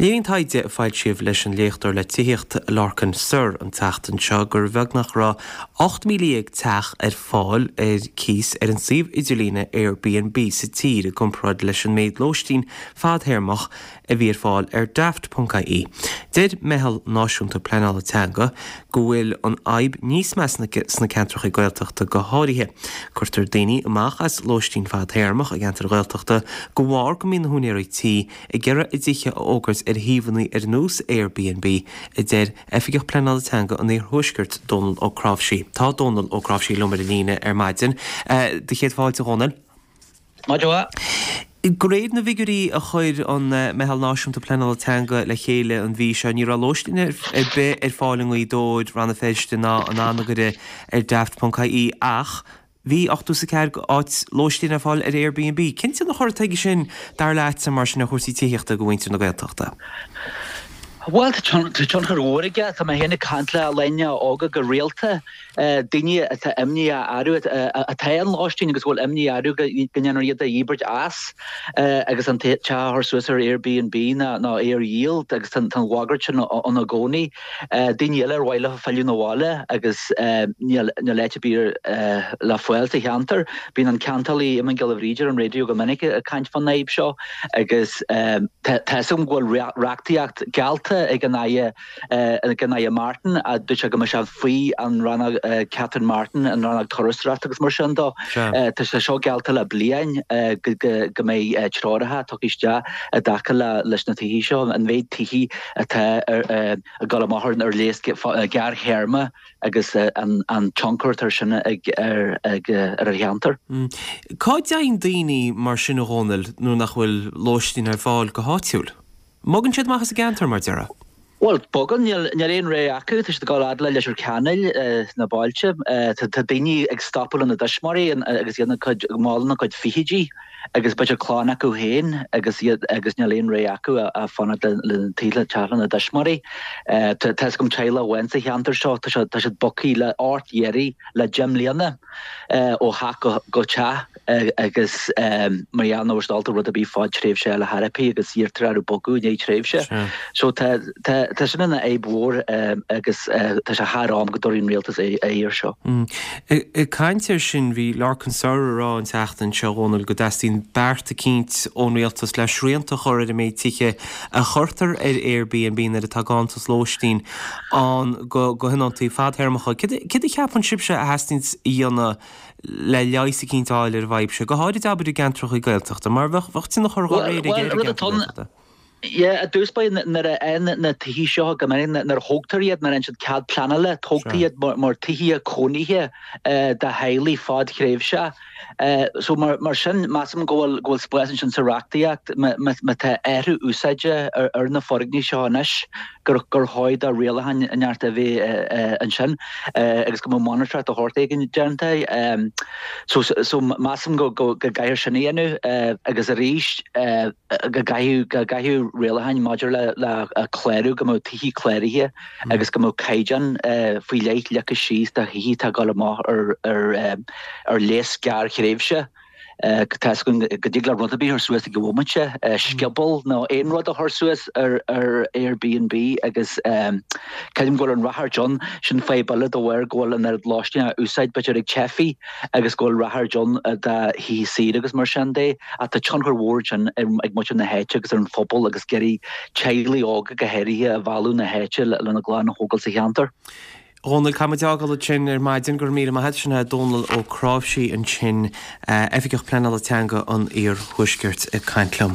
Léiríonn taighde a foilsíodh leis an léachtóir le tithíocht Lorcan Sirr an tseachtain seo gur bheag nach raibh 18,000 teach ar fáil ar cíos ar an suíomh idirlíne Airbnb sa tír i gcomparáid leis an méid lóistín fadthéarmach a bhí ar fáil ar Daft.ie. Deir Meitheal Náisiúnta Pleanála Teanga go bhfuil an fhadhb níos measa sna ceantracha Gaeltachta go háirithe. Cuirtear daoine amach as lóistín fadthéarmach i gceantair Ghaeltachta de bharr go mbíonn na húinéirí tí ag iarraidh a dtithe a fhógairt ar shuíomhanna ar nós Airbnb, a deir Oifigeach Pleanála Teanga an Iarthuaiscirt, Dónal Ó Cnáimhsí. Tá Dónal Ó Cnáimhsí liom ar an líne ar maidin. Do chéad fáilte, a Dhónaill. Maidin mhaith. De réir na bhfigiúirí a chuir an Meitheal Náisiúnta Pleanála Teanga le chéile an mhí seo, ní raibh lóistín ar bith ar fáil i nGaoth Dobhair, Rann na Feirste ná in Anagaire ar Daft.ie ach bhí 84 áit lóistín ar fáil ar Airbnb. Cén tionchar atá aige sin, dar leatsa, mar sin, ar chúrsaí tithíochta do mhuintir na Gaeltachta? Bhuel, tá tionchar mhór aige. Tá mé féin ag caint le daoine óga go rialta, daoine atá imníoch orthu, atá ar lóistín agus go bhfuil imní orthu go ndéanfar iad a dhíbirt as agus an teach a chur suas ar Airbnb nó é a dhíol agus tá an bhagairt sin ann i gcónaí. Daoine eile ar mhaith leo filleadh 'na bhaile agus níl áit ar bith le fáil sa cheantar. Bíonn an ceantálaí Eamon Giolla Bhríde ar an raidió go minic ag caint fán fhadhb seo agus tá fhios agam go bhfuil reachtaíocht geallta ag an Aire, ag an Aire Martin, a dúirt sé go mbeadh sé faoi an rannóg Catherine Martin, an rannóg turasóireachta agus mar sin dó. Tá sé seo geallta le bliain go mbeidh treoracha tugtha isteach i dtaca leis na tithe seo, an mhéid tithe atá ag dul amach ar léas gearrthéarma agus an tionchar atá sin ag ar an cheantar. Cá dtéann daoine mar sin, a Dhónaill, nuair nach bhfuil lóistín ar fáil go háitiúil? An mbogann siad amach as an gceantar, mar déarfá? Bhuel, bogann, níl aon rogha acu, tá siad ag dul fhad le Leitir Ceanainn sna bailte. Tá daoine ag stopadh lena dtuismitheoirí agus iad mall ina gcuid fichidí. agus b'fhéidir clann acu féin agus iad agus níl aon rogha acu ach fanacht le teach lena dtuismitheoirí. Tá fhios agam teaghlach amháin sa cheantar seo, tá siad tá siad bogtha le ort iarraidh le 10 mbliana ó theach go teach agus mar gheall nach raibh siad ábalta rud ar bith fadtréimhse a fháil ar chor ar bith agus iarrtar orthu bogadh i ndiaidh tréimhse. So tá tá tá sin ina fhadhb mhór agus tá sé thar am go dtabharfaidh an rialtas aghaidh air seo. Ag caint air sin, bhí Lorcan Sirr ag rá an tseachtain seo, a Dhónaill, go dteastaíonn beart eicínt ón rialtas le srianta a chur ar an méid tithe a chuirtear ar Airbnb nuair atá ganntanas lóistín ann do thionóntaí fadthéarmacha. Céard a cheapann sibhse a theastaíonns a dhéanamh le leigheas eicínt a fháil ar an bhfadhb seo, go háirid abair i gceantracha Gaeltachta, mar bheadh tionchar dá réir aige ar an gceantar Gaeltachta? Yeah, i dtús báire nuair a fhaigheann na tithe seo go minic nuair a thógtar iad, nuair a fhaigheann siad cead pleanála, tógtar iad mar tithe cónaithe do theaghlaigh fadthréimhseach. So mar sin, measaim go bhfuil go bhfuil spás ansin sa reachtaíocht má tá athrú úsáide ar na foirgnimh seo anois gur gur chóir do rialacháin inteacht a bheith ansin agus go mbeadh monatóireacht de shórt éigin déanta. So so measaim go go gcaithfear sin a dhéanamh agus arís, go gcaithfidh go gcaithfidh rialacháin maidir le le clárú, go mbeadh tithe cláraithe agus go mbeadh caighdeán faoi leith leagtha síos do thithe atá ag dul amach ar ar ar léas gearrthréimhse. Tá fhios againn go dtig le rud ar bith a chur suas ag an bhomaite, scioból nó aon rud a chur suas ar ar Airbnb agus creidim go bhfuil an ráchairt ann, sin fadhb eile de bharr go bhfuil an oiread lóistín á úsáid b'fhéidir ag teifigh agus go bhfuil ráchairt ann do thithe saoire agus mar sin de. Ach tá tionchar mhór ansin ag muintir na háite agus ar an phobal agus ag iarraidh teaghlaigh óga go háirithe a mhealladh na háite lena gclann a thógáil sa cheantar. A Dhónaill, caithfidh muid é a fhágáil ansin ar maidin. Go raibh míle maith agat. Sin é Dónal Ó Cnáimhsí ansin, Oifigeach Pleanála Teanga an Iarthuaiscirt ag caint liom.